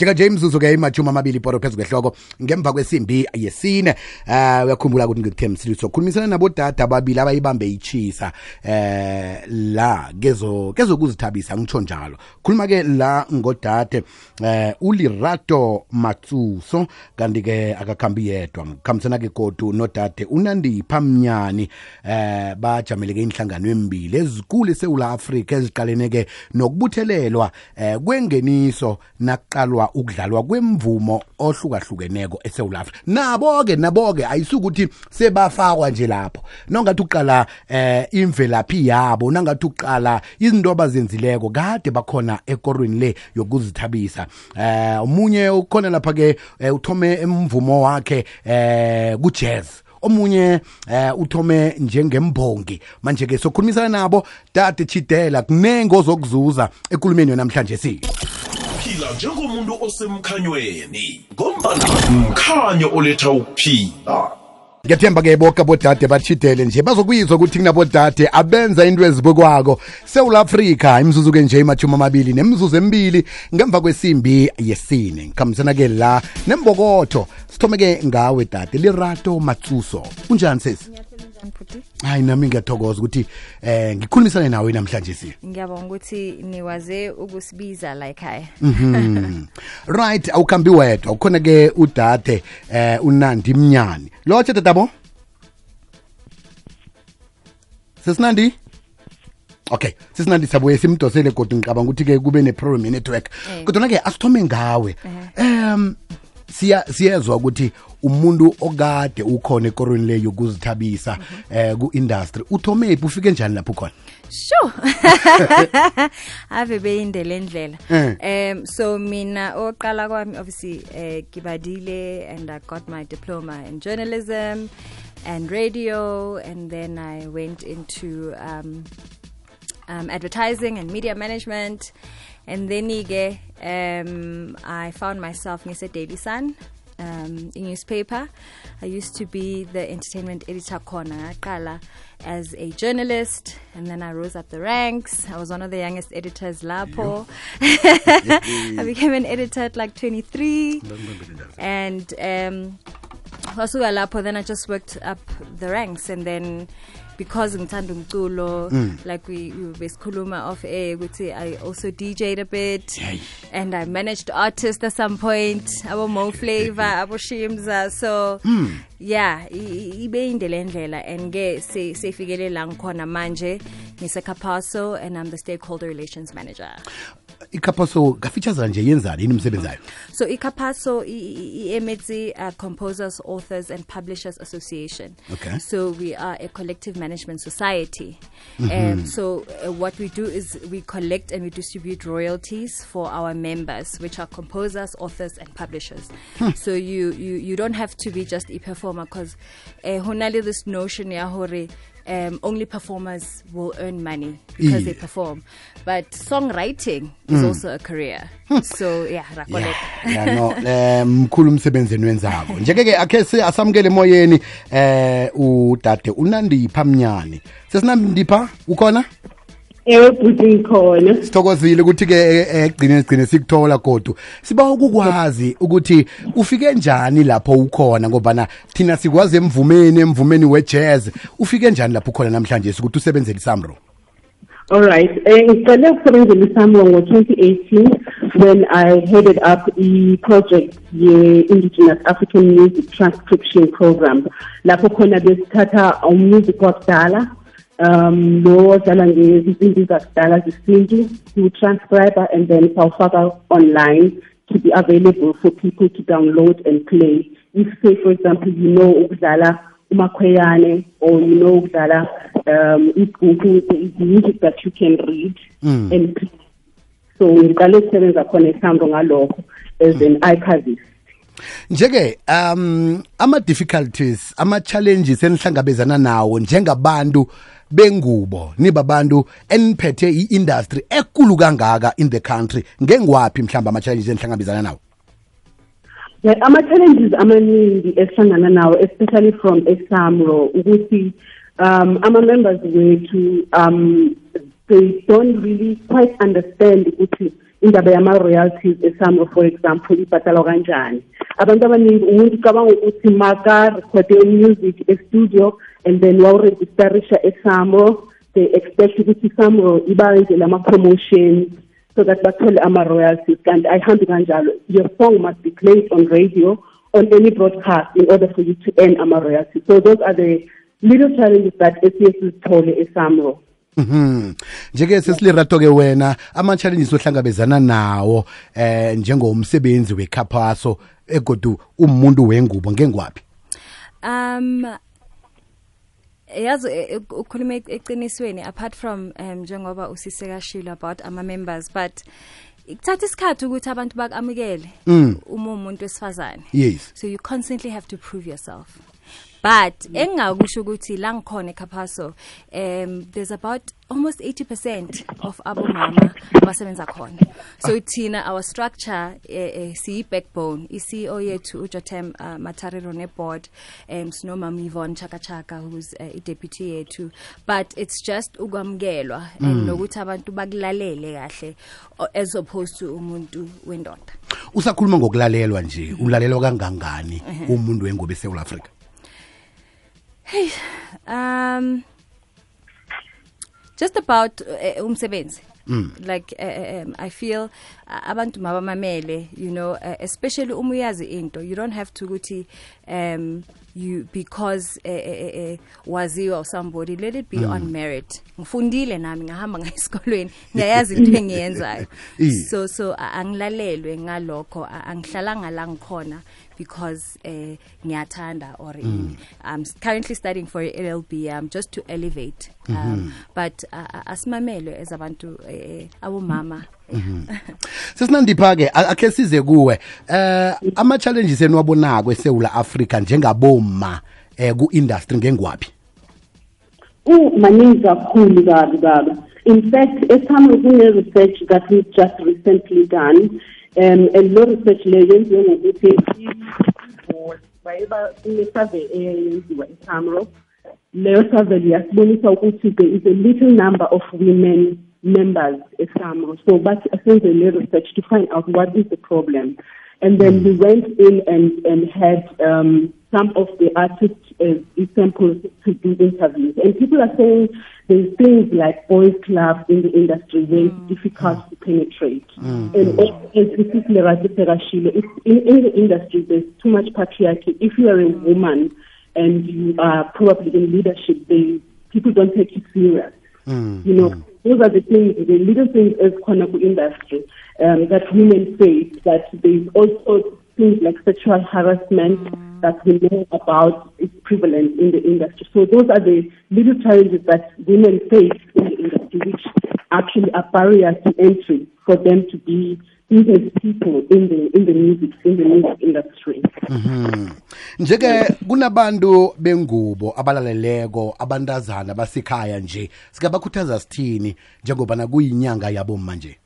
Njenge imzuzu ke imajuma amabili poro phezulu kwehloko ngemva kwesimbi yesine. Uyakhumbula ukuthi ngikuthe msiliso khulumisana nabo dada ababili abayibambe ichisa la kezokuzithabisa ngitsho njalo. Khuluma ke la ngodade uLerato Matsuso kanti ke akakhambi yedwa khamisana ke godu nodade uNandipha Mnyani bajamele ke inhlangano emibili ezikulu eSouth Africa eziqalene ke nokubuthelelwa kwengeniso naqalwa ukudlalwa kwemvumo ohlukahlukeneko eSouth Africa. Nabo ke ayisukuthi sebafakwa nje lapho. Nongathi uqala imvelaphi yabo, nangathi uqala izinto abazenzileko kade bakhona ekorweni le yokuzithabisa. Umunye ukhona lapha ke uthome emvumo wakhe ku-jazz. Omunye uthome njengembongi. Manje ke sokhulumisana nabo dade Chidela kunengo zokuzuza ekulumeni namhlanje phila njengomuntu osemkhanyweni ngombana umkhanyo oletha ukuphila. Ngiyathemba ke bonke abodade bachidele nje bazokuyizwa ukuthi kunabodade abenza into ezibukwako South Africa imzuzu ke nje imajuma amabili nemzuzu emibili ngemva kwesimbi yesine. Ngikhambisana ke la nembokotho sithome ke ngawe dade Lerato Matsuso. Unjani sesi? Hayi nami ngiyathokoza ukuthi ngikhulumisane nawe namhlanje Ngiyabonga ukuthi niwaze ukusibiza la ekhaya. Right, awukhambi wedwa ukhona ke udade uNandi Mnyani. Lotshe dadabo? Sesinandi? Okay, sesinandi sabuye simdosele kodwa ngicabanga ukuthi ke kube neprogram network. Kodwa ke asithome ngawe. Siyezwa ukuthi umuntu okade ukhona ekorweni le yokuzithabisa ku-industry uthome ufike njani lapho khona? Sure. Ave beyindele ndlela. So mina oqala kwami obviously Kibadile, and I got my diploma in journalism and radio, and then I went into advertising and media management, and then I found myself in Daily Sun, a newspaper. I used to be the entertainment editor corner as a journalist, and then I rose up the ranks. I was one of the youngest editors Lapo. I became an editor at like 23, and also Lapo. Then I just worked up the ranks, and then because ngithanda umculo, like we besikhuluma off air ukuthi I also DJ'd a bit, and I managed artists at some point, abo Mo Flavor, abo Shimza. So yeah, ibe indlela ndlela, and ke sefikele la ngikhona manje ngiseKhapaso, and I'm the stakeholder relations manager. iKhapaso kafeatures nje yenzani yini umsebenzi wayo? So iKhapaso iMetsi Composers, Authors and Publishers Association. Okay. So we are a collective management society. So what we do is we collect and we distribute royalties for our members, which are composers, authors and publishers. So you don't have to be just a performer, because honali this notion ya hore only performers will earn money because they perform, but songwriting is also a career. So yeah, mkhulu umsebenzi wenzako. Njeke akhe asamukele emoyeni udade uNandipha Mnyani. Sesinandipha ukhona? Buti khona. Sithokozile ukuthi ke egcine sikuthola kodwa siba ukukwazi ukuthi ufike njani lapho ukhona, ngoba thina sikwazi emvumeni we-jazz. Ufike njani lapho ukhona namhlanje ukuthi usebenzele iSAMRO? All right. Ngiqale ukusebenzela iSAMRO ngo-2018 when I headed up the project ye-Indigenous African Music Transcription Program. Lapho khona besithatha music wakudala lo dala ngezinto zakudala zesintu to transcribe and then sawufaka online to be available for people to download and play. If say for example ukudlala umakhweyane, or ukudlala music that you can read and play. So ngiqale ukusebenza khona eSAMRO ngalokho as an archivist. Njeke ama difficulties, ama challenges enihlangabezana nawo njengabantu bengubo nibabantu eniphethe i-industry ekulu kangaka in the country, ngengwaphi mhlamba ama challenges enihlangabezana nawo? Ama challenges amaningi esihlangana nawo, especially from eSAMRO, ukuthi ama members wethu they don't really quite understand ukuthi indaba yama-royalties eSAMRO, for example, ibhatalwa kanjani. Abantu abaningi umuntu ucabanga ukuthi maka-rekhode music e-studio and then wawu-registerisha eSAMRO, they expect ukuthi iSAMRO ibenze lama-promotions so that bathole ama-royalties. And ayihambi kanjalo. Your song must be played on radio, on any broadcast, in order for you to earn ama-royalties. So those are the little challenges that SABC sithole eSAMRO. Njeke sesilirato ke wena ama challenges ohlangabezana nawo njengomsebenzi weKhapaso egodu umuntu wengubo ngengwapi? Yazi ukhuluma eqinisweni apart from njengoba usiseka shilo about ama members, but ikuthatha isikhathi ukuthi abantu bakamukele umuntu wesifazane. Yes. So you constantly have to prove yourself. But engakusho ukuthi la ngikhona eKhapaso there's about almost 80% of abomama abasebenza khona. So thina our structure si backbone iCEO yethu uJotem Matariro ne board sinomama Yvonne Chaka who's a deputy yethu, but it's just ukwamkelwa and nokuthi abantu bakulalele kahle as opposed to umuntu wendoda. Usakhuluma ngokulalelwa nje, ulalelwa kangangani umuntu wengubo eSouth Africa? Hey, just about umsebenzi. Like I feel abantu mabamamele, you know, especially umuyazi into, you don't have to guti you because waziwa or somebody, let it be on merit. Ngifundile nami ngahamba ngesikolweni ngiyayazi into engiyenzayo. So angilalelwe ngalokho, angihlalanga la ngikhona because ngiyathanda or I'm currently studying for LLB just to elevate but asimamele as abantu abomama. Sesinandipha ke akhe size kuwe ama challenges enwabonako eSouth Africa njengaboma ku industry ngengwapi? Maningi kakhulu baba. In fact, eSAMRO kune research that we've just recently done and lo research le yenziwe ngokuthi bayeba survey eyenziwa eSAMRO. Leyo survey yasibonisa ukuthi there is a little number of women members eSAMRO. So but essentially research to find out what is the problem. And then we went in and had some of the artists samples to do interviews. And people are saying there's things like boys clubs in the industry where it's difficult to penetrate. And also, as this is in the industry, there's too much patriarchy. If you are a woman and you are probably in leadership, people don't take you serious. You know, those are the things, the little things as Konaku industry that women face. That there's also things like sexual harassment that we know about is prevalent in the industry. So those are the little challenges that women face in the industry, which actually are barriers to entry for them to be business people in the music industry. Njeke kunabantu bengubo abalaleleko abantazana basikhaya nje sikabakhuthaza sithini njengoba na kuyinyanga yabo manje?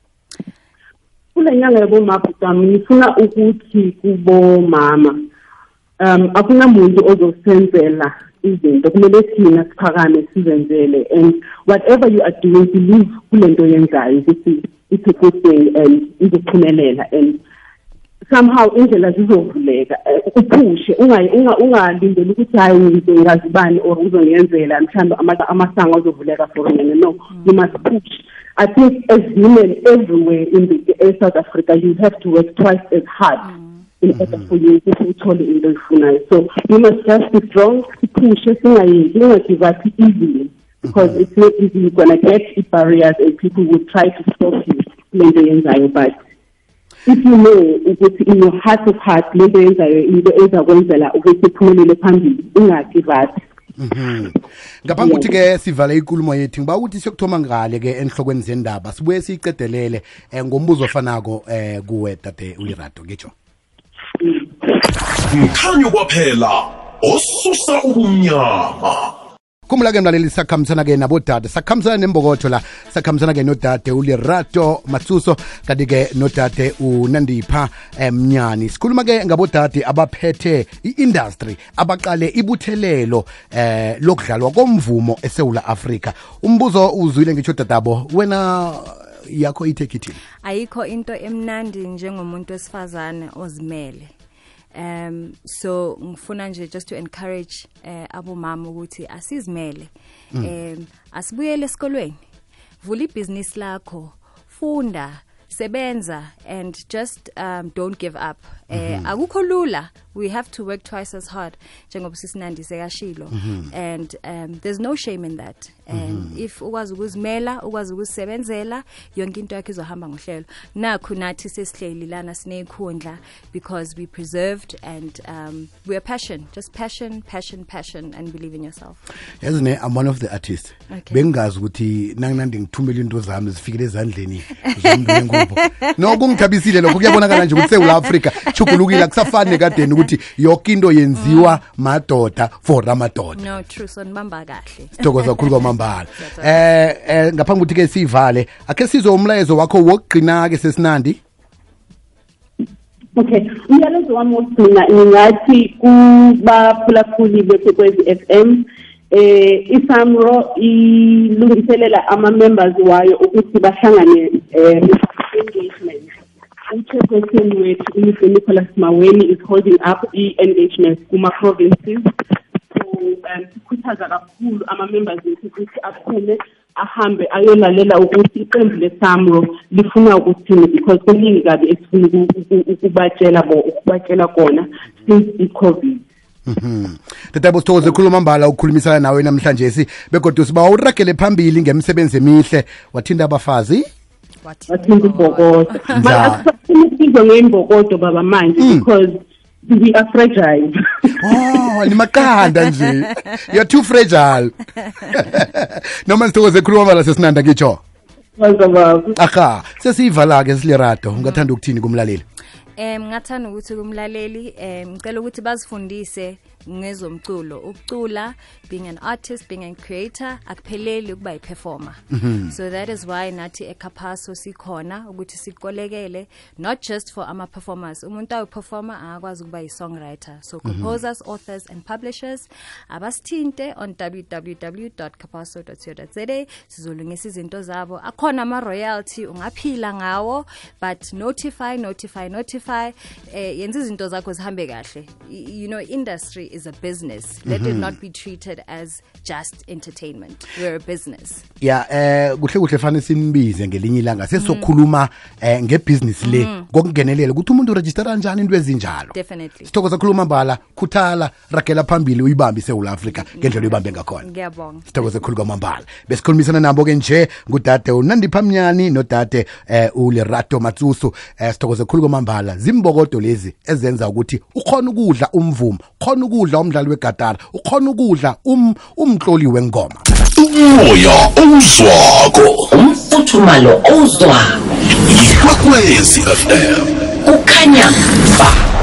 Kule nyanga yabo mama ngifuna ukuthi kubo mama akunamuntu ozosenzela izinto, kumele thina siphakame sizenzele, and whatever you are doing, believe kulento yenzayo ukuthi it's a good thing and izophumelela, and somehow indlela zizovuleka uphushe ungalindeli ukuthi hayi ngizongazibani or uzongenzela mhlawumbe amasango azovuleka for mina. No, you must push. I think as women everywhere in South Africa, you have to work twice as hard in order for you to uthole into oyifunayo. So you must just be strong, push, give up easily, because it's not easy. You're gonna get barriers and people will try to stop you lento yenzayo, but if you know ukuthi in your heart of heart lento yenzayo into ezakwenzela ukuthi uphumelele phambili, ungagive up. Ngaphambi ukuthi ke sivale inkulumo yethu ngiba ukuthi siyokuthoma ngale ke enhlokweni zendaba sibuye siyiqedelele ngombuzo ofanako kuwe tate uLerato ngitsho. Mkhanyo kwaphela osusa ubumnyama. Kumula ke mlaleli sakhambisana ke nabodade, sakhambisana nembokotho la, sakhambisana ke nodade uLerato Matsuso kanti ke nodade uNandipha Mnyani. Sikhuluma ke ngabodade abaphethe iindustry abaqale ibuthelelo lokudlalwa komvumo eSouth Africa. Umbuzo uzwile ngitsho dadabo, wena yakho ithekithini? Ayikho into emnandi njengomuntu wesifazane ozimele. So ngifuna nje just to encourage abomama ukuthi asizimele. Asibuyele esikolweni. Vula ibhizinisi lakho, funda, sebenza, and just don't give up. Akukho lula. We have to work twice as hard njengoba sisinandi sekashilo, and there's no shame in that. And if ukwazi ukuzimela, ukwazi ukuzisebenzela, yonke into yakho izohamba ngohlelo. Nakho nathi sesihleli lana sinekhundla because we preserved, and we are passion, and believe in yourself. Yazine, I'm one of the artists. Bengazi ukuthi nanginandi ngithumela into zami zifikele ezandleni zomuntu ngubo. No kungithabisile lokho, kuyabonakala nje ukuthi seUl Africa chukulukile kusafane kadeni ukuthi yonke into yenziwa madoda for amadoda. No, true, sonibamba kahle. Sithokoza kakhulu kwamambala. Ngaphambi ukuthi ke sivale, ake sizwe umlayezo wakho wokugcina ke sesinandi. Okay, umyalezo wami wokugcina ngingathi kubaphulaphuli beKwekwezi FM, iSAMRO ilungiselela ama-members wayo ukuthi bahlangane engagement. Uchairperson wethu uMr Nicholas Maweni is holding up i-engagement kuma-provinces. So sikhuthaza kakhulu ama-members wethu ukuthi aphume ahambe ayolalela ukuthi iqembu leSAMRO lifuna ukuthini, because kuningi kabi esifuna ukubatshela kona since i-COVID. Tatabo sithokoze khuluma mbala ukukhulumisana nawe namhlanje begodwa siba uragele phambili ngemisebenzi emihle, wathinda abafazi, wathinda ibhokodo. Manje ngembokodo baba manje because we are fragile. Oh, ni makanda nje. You're too fragile. Noma sithokoze khuluma mbala sesinanda ngitsho. Aha, sesivala ke silerato, ungathanda ukuthini kumlaleli? Ngathanda ukuthi kumlaleli ngicela ukuthi bazifundise ngezomculo. Ukucula, being an artist, being a creator, akupheleli ukuba i-performer. So that is why nathi eKhapaso sikhona ukuthi sikolekele, not just for ama-performers. Umuntu awu-performer akwazi ukuba yi-songwriter. So composers, authors and publishers, abasithinte on www.khapaso.co.za. Sizolungisa izinto zabo. Akhona ama-royalty, ungaphila ngawo, but notify. Yenza izinto zakho zihambe kahle. You know, industry is a business. Let it not be treated as just entertainment. We're a business. Yeah, kuhle fane sinibize ngelinye ilanga sesokhuluma ngebusiness le ngokungenelela ukuthi umuntu register kanjani into ezinjalo. Definitely. Sithokoza khuluma mbala, khuthala, ragela phambili uyibambe seUl Africa ngendlela uyibambe ngakhona. Ngiyabonga. Sithokoza khulu kwamambala. Besikhulumisana nabo ke nje ngudade uNandipha Mnyani nodade uLerato Matsuso. Sithokoza khulu kwamambala. Zimbokodo lezi ezenza ukuthi ukhona ukudla umvumo, ukhona ukudla umdlali wegatara, ukhona ukudla umtloli wengoma. Umoya ozwako, umfuthumalo ozwako. Ikwekwezi FM. Kukhanya ba.